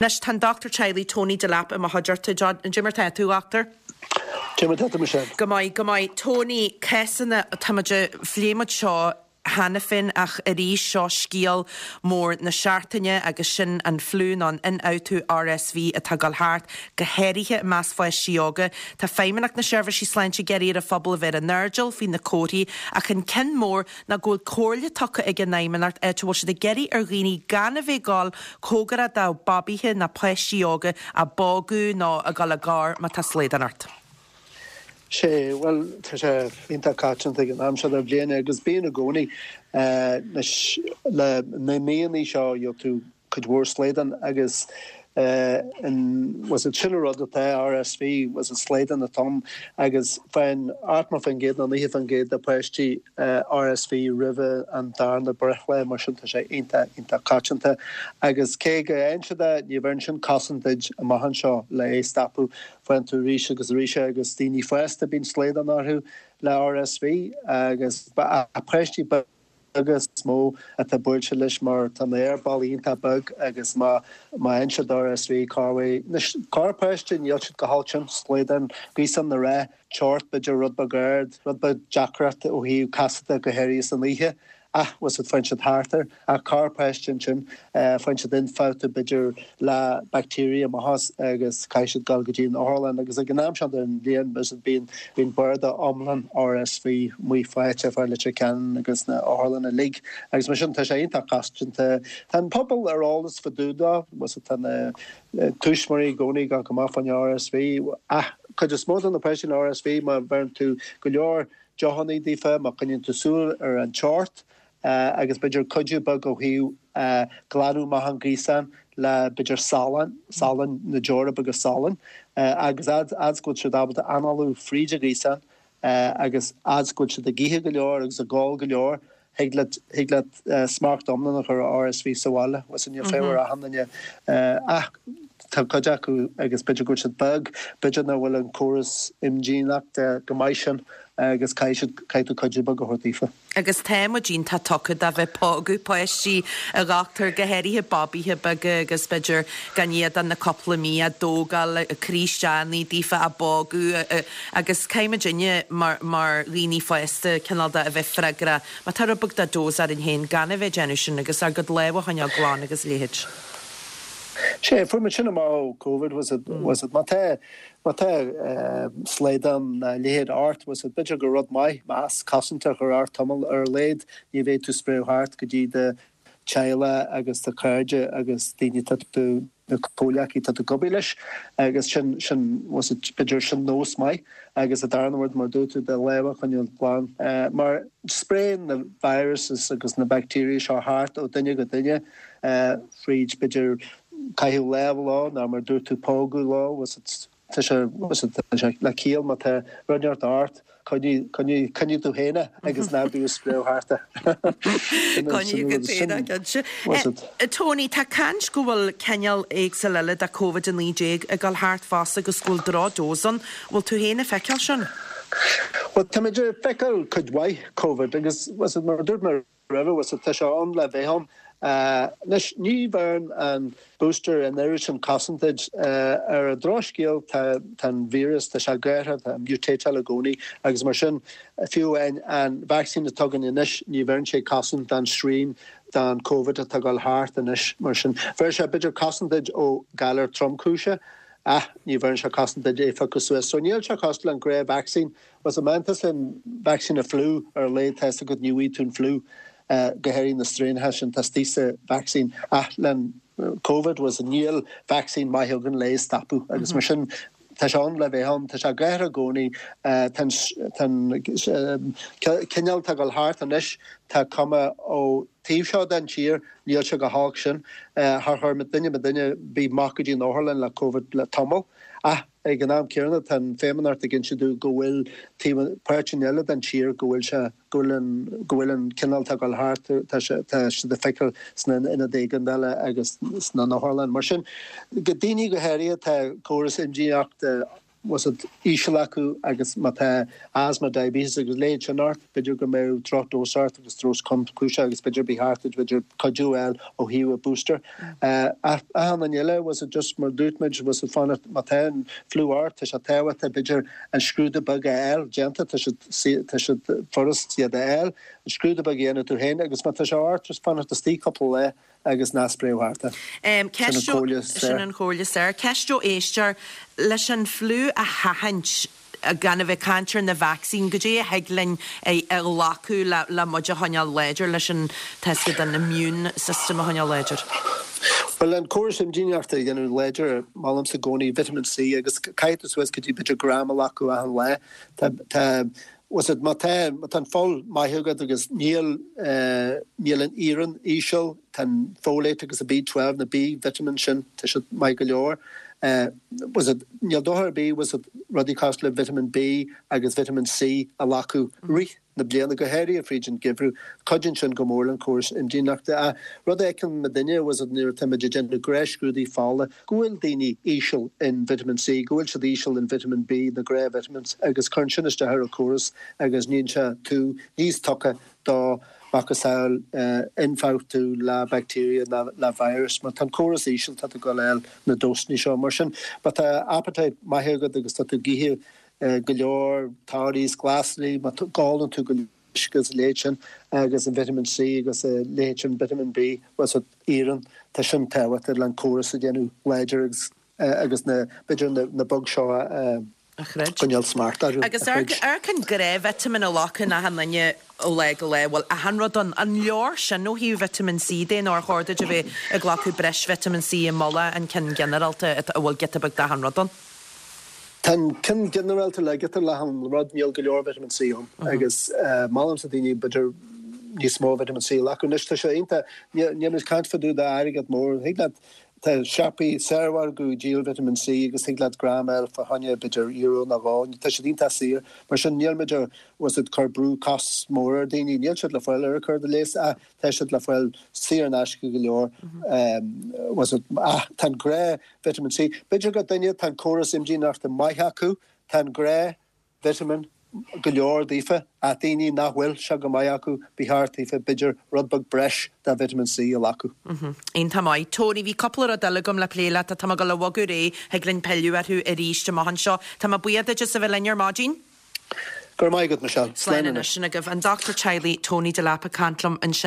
Anois, tá an dochtúir teaghlaigh Tony Delap i mo chuideachta. Cad é mar tá tú, a dhochtúir? Cad é mar tá tú, Michelle? Go maith, go maith. Tony, cásanna, tá muid, phléigh muid seo cheana féin ach arís seo scéal mór na seachtaine agus sin an fliú nó an ionfhabhtú RSV atá ag dul thart, go háirithe i measc pháistí óga. Tá Feidhmeannacht na Seirbhísí Sláinte ag iarraidh ar an phobal a bheith ar a n-airdeall faoi na comharthaí ach an ceann mór ná go bhfuil comhairle tugtha ag an Fheidhmeannacht áit a bhfuil siad ag iarraidh ar dhaoine gan a bheith ag dul cóngarach do babaithe ná páistí óga á bpógadh nó ag dul i ngar má tá slaghdán ort. Sé, bhuel, tá sé iontach coitianta ag an am seo den bhliain agus bíonn i gcónaí. Anois, le na míonna seo, gheobhaidh tú cuid mhór slaghdán agus an, bhfuil fhios a'd, sin an rud atá RSV, bhfuil fhios a'd, slaghdán atá ann agus faigheann 80% nó 90% de pháistí RSV roimhe an darna breithlá, mar sin tá sé iontach, iontach coitianta agus cé go bhfaigheann siad é, ní bheireann sin cosaint duit amach anseo le é stopadh, faigheann tú arís agus arís é agus daoine fásta bíonn slaghdán orthu le RSV agus páistí beaga. beaga is mó atá buailte leis mar tá na haerballaí iontach beag agus má má fhaigheann siad RSV corruair anois corrpháiste níl siad go holc sin slaghdán gaosán na rá teocht b'fhéidir rud beag ard rud beag deacracht ó thaobh casadh go háirithe san oíche ach bhfuil fhios a'd faigheann siad thart air ach corrpháiste ansin faigheann siad ionfhabhtú b'fhéidir le bacteria amach as agus caithfidh siad dul go dtí an otharlann agus ag an am seo den bhliain bíonn bíonn barda iomlán RSV amuigh faighte fá Leitir Ceanainn agus na otharlanna uilig agus mar sin tá sé iontach coitianta. Tá an pobal ar eolas fá dtaobh dó, bhfuil fhios a'd tá na tuismitheoirí i gcónaí ag gabháil amach fán RSV ach cuid is mó de na páistí le RSV má bheireann tú go leor deochannaí daofa, má choinníonn tú súil ar an teocht, agus b'fhéidir cuidiú beag ó thaobh glanadh amach an ghaosán le b'fhéidir salann, salann, na deora beaga salainn, agus fhad is go bhfuil siad ábalta análú fríd an ghaosán agus fhad is go bhfuil siad ag ithe go leor agus ag ól go leor, thig leat, thig leat smacht iomlán a chur ar RSV sa bhaile. Bhfuil fhios a'd níl feidhm ar achan duine ach tá cuid acu agus b'fhéidir go bhfuil siad beag, b'fhéidir nach bhfuil an córas imdhíonachta go maith sin agus caithfidh siad, caithfidh tú cuidiú beag a thabhairt daofa. Agus tá muid iontach tugtha do bheith ag pógadh páistí, a dhochtúir, go háirithe babaithe beaga agus b'fhéidir gan iad ach na cúpla mí á dtógáil, ag cur isteach daofa, á bpógadh agus caithfidh muidinne mar mar dhaoine fásta cineál de a bheith freagrach má tá rud beag de dose orainn féin gan a bheith ag déanamh sin agus ár gcuid lámha a choinneáil glan agus a leithéid. Sea, fuair muid sin amach ó Covid, bhfuil fhios a'd, bhfuil fhios a'd, má tá Má tá slaghdán nó a leithéid ort, bhfuil fhios a'd, b'fhéidir gur rud maith masc cosanta a chur ort tamall ar a laghad, ní bheidh tú spréadh thart go dtí do teaghlach agus do chairde agus daoine atá tú, na comhleacaí atá tú ag obair leis agus sin, sin, bhfuil fhios a'd, b'fhéidir sin nós maith agus an darna rud mar a dúirt tú, do lámha a choinneáil glan mar spréann na viruses agus na bacteria seo thart ó duine go duine fríd b'fhéidir caitheamh lámh leo nó mar a dúirt tú pógadh leo, bhfuil fhios a'd, tá sé, bhfuil fhios a'd, tá sé le ciall má tá rud inteacht ort, coinnigh, coinnigh, coinnigh tú féin é agus ná bí ag spréadh thart é. Coinnigh tú féin é, cinnte. Bhfuil fhios a'd. Tony, tá caint go bhfuil cineál éagsúil eile de Covid-19 ag dul thart fosta agus go bhfuil droch-dose ann. Bhfuil tú féin ag feiceáil sin? Bhuel, táimid ag feiceáil cuid mhaith Covid agus, bhfuil fhios a'd, mar a dúirt mé roimhe, bhfuil fhios a'd, tá sé ann le bheith ann. Anois, ní bheireann an booster an oiread sin cosaint duit. Ar an drochscéal, tá an víreas, tá sé ag athrú, tá mutateáil i gcónaí agus mar sin, fiú amháin an vacsaín atá againn anois, ní bheireann sé cosaint don strain, don Covid atá ag dul thart anois. Mar sin, bheir sé b'fhéidir cosaint duit ó galar tromchúiseach ach ní bheireann sé cosaint duit é a phiocadh suas. So níl sé cosúil le an gnáth-vacsaín. Bhfuil fhios a'd, má tá an vacsaín an fliú ar a laghad tá fhios agat ní bhfaighidh tú an fliú, go háirithe na straenacha sin atá istigh sa vacsaín ach le Covid bhfuil fhios a'd níl vacsaín maith againn le é a stopadh agus mar sin tá sé ann le bheith ann, tá sé ag athrú i gcónaí, tá an cineál atá ag dul thart anois tá cuma ó taobh seo den tír níl sé chomh holc sin, char chuir duine duine ar bith amach go dtí an otharlann le Covid le tamall ach Ag an am céanna, tá an Feidhmeannacht ag inse dúinn go bhfuil taobh, páirteanna eile den tír go bhfuil sé, go bhfuil an, go bhfuil an cineál atá ag dul thart, tá sé, tá siad ag feiceáil sna ionaid éigeandála agus sna n-otharlann. Mar sin, go daoine go háirithe, tá córas imdhíonachta. Bhfuil siad íseal acu agus má tá asthma, diabetes agus a leithéid sin ort, b'fhéidir go mbeadh drochdose ort agus dose tromchúiseach agus b'fhéidir ba cheart duit b'fhéidir cuidiú a fháil ó thaobh a booster. Ach achan duine eile, bhfuil siad just mar dúirt muid, bhfuil siad fanacht má tá an fliú ort, tá sé tábhachtach b'fhéidir an scrúdú beag a fháil déanta, tá siad tá siad furast iad a fháil, an scrúdú beag a dhéanamh tú féin agus má tá sé ort just fanacht istigh cúpla lá agus ná spréadh thart é. Sin an chomhairle is fearr. Sin an chomhairle is fearr. Ceist ó éisteoir, leis an fliú a sheachaint, gan a bheith ag caint ar na vacsaíní, goidé a thig linn a ghlacadh le muid a choinneáil láidir, leis an, tá 'fhios agat, an immune system a choinneáil láidir? Bhuel, an córas imdhíonachta a dhéanamh láidir, molaimse i gcónaí vitamin C agus caithfidh tú suas go dtí b'fhéidir gram a ghlacadh achan lá. Tá, tá, Bhfuil 'fhios agat, má tá, má tá an fuil maith agat agus níl, níl an iarann íseal, tá an folate agus an B12, na B vitamins sin, tá siad maith go leor. Bhfuil 'fhios agat, níl dochar ar bith, bhfuil 'fhios agat, rudaí cosúil le vitamin B agus vitamin C a ghlacadh rith na bliana, go háirithe fríd an geimhreadh. Cuidíonn sin go mór le an córas imdhíonachta. Ach rud a fheiceann muidinne, bhfuil 'fhios agat, nuair atá muid ag déanamh gnáthscrúduithe fola, go bhfuil daoine íseal in vitamin C, go bhfuil siad íseal in vitamin B, na gnáth-vitamins, agus cuireann sin isteach ar an córas agus níonn sé tú níos tugtha do macasamhail ionfhabhtú le bacteria nó le virus. Má tá an córas íseal, tá tú ag dul a fháil na dósanna seo. Mar sin, má tá appetite maith agat agus tá tú ag ithe go leor torthaí is glasraí, má ólann tú go leor uisce agus a leithéid sin agus an vitamin C agus a leithéid sin, vitamin B, bhfuil 'fhios agat, iarann, tá sin tábhachtach le an córas a dhéanamh láidir agus agus na, b'fhéidir na, na bugs seo a a choinneáil smacht orthu, Agus a throid. Amharc an gnáth-vitamin a ghlacann achan duine ó lá go lá, bhfuil achan rud ann. An leor sin ó thaobh vitamin C de nó ar chóir duit a bheith ag glacadh breis vitamin C i mullach an ceann ginearálta a bhfuil giota beag d'achan rud ann? Tá an ceann ginearálta le giota d'achan rud, níl go leor vitamin C ann agus molaimse daoine b'fhéidir níos mó vitamin C a ghlacadh. Anois tá sé iontach, níl muid ag caint fá dtaobh d'airgead mór, thig leat, tá siopaí saormhargadh ag díol vitamin C agus thig leat gram a fháil fá choinne b'fhéidir euro nó dhó, tá siad iontach saor. Mar sin níl muid ag, bhfuil 'fhios agat, cur brú costas mór ar daoine, níl siad le fáil ar an cur de léas ach tá siad le fáil saor in aisce go leor, bhfuil 'fhios agat, ach tá an gnáth vitamin C. B'fhéidir go duine tá an córas imdhíonachta maith acu, tá an gnáth vitamin go leor daofa, ach daoine nach bhfuil sé go maith acu, ba cheart daofa b'fhéidir rud beag breis de vitamin C a ghlacadh. Iontach maith. Tony, bhí cúpla rud eile agam le plé leat ach tá mé ag dul a bhogadh ar aghaidh, thig linn pilleadh orthu arís amach anseo. Tá mé buíoch duit as a bheith linn ar maidin. Go raibh maith agat, Michelle. Slán anois. Sin agaibh an Dochtúir Teaghlaigh Tony Delap ag caint liom ansin.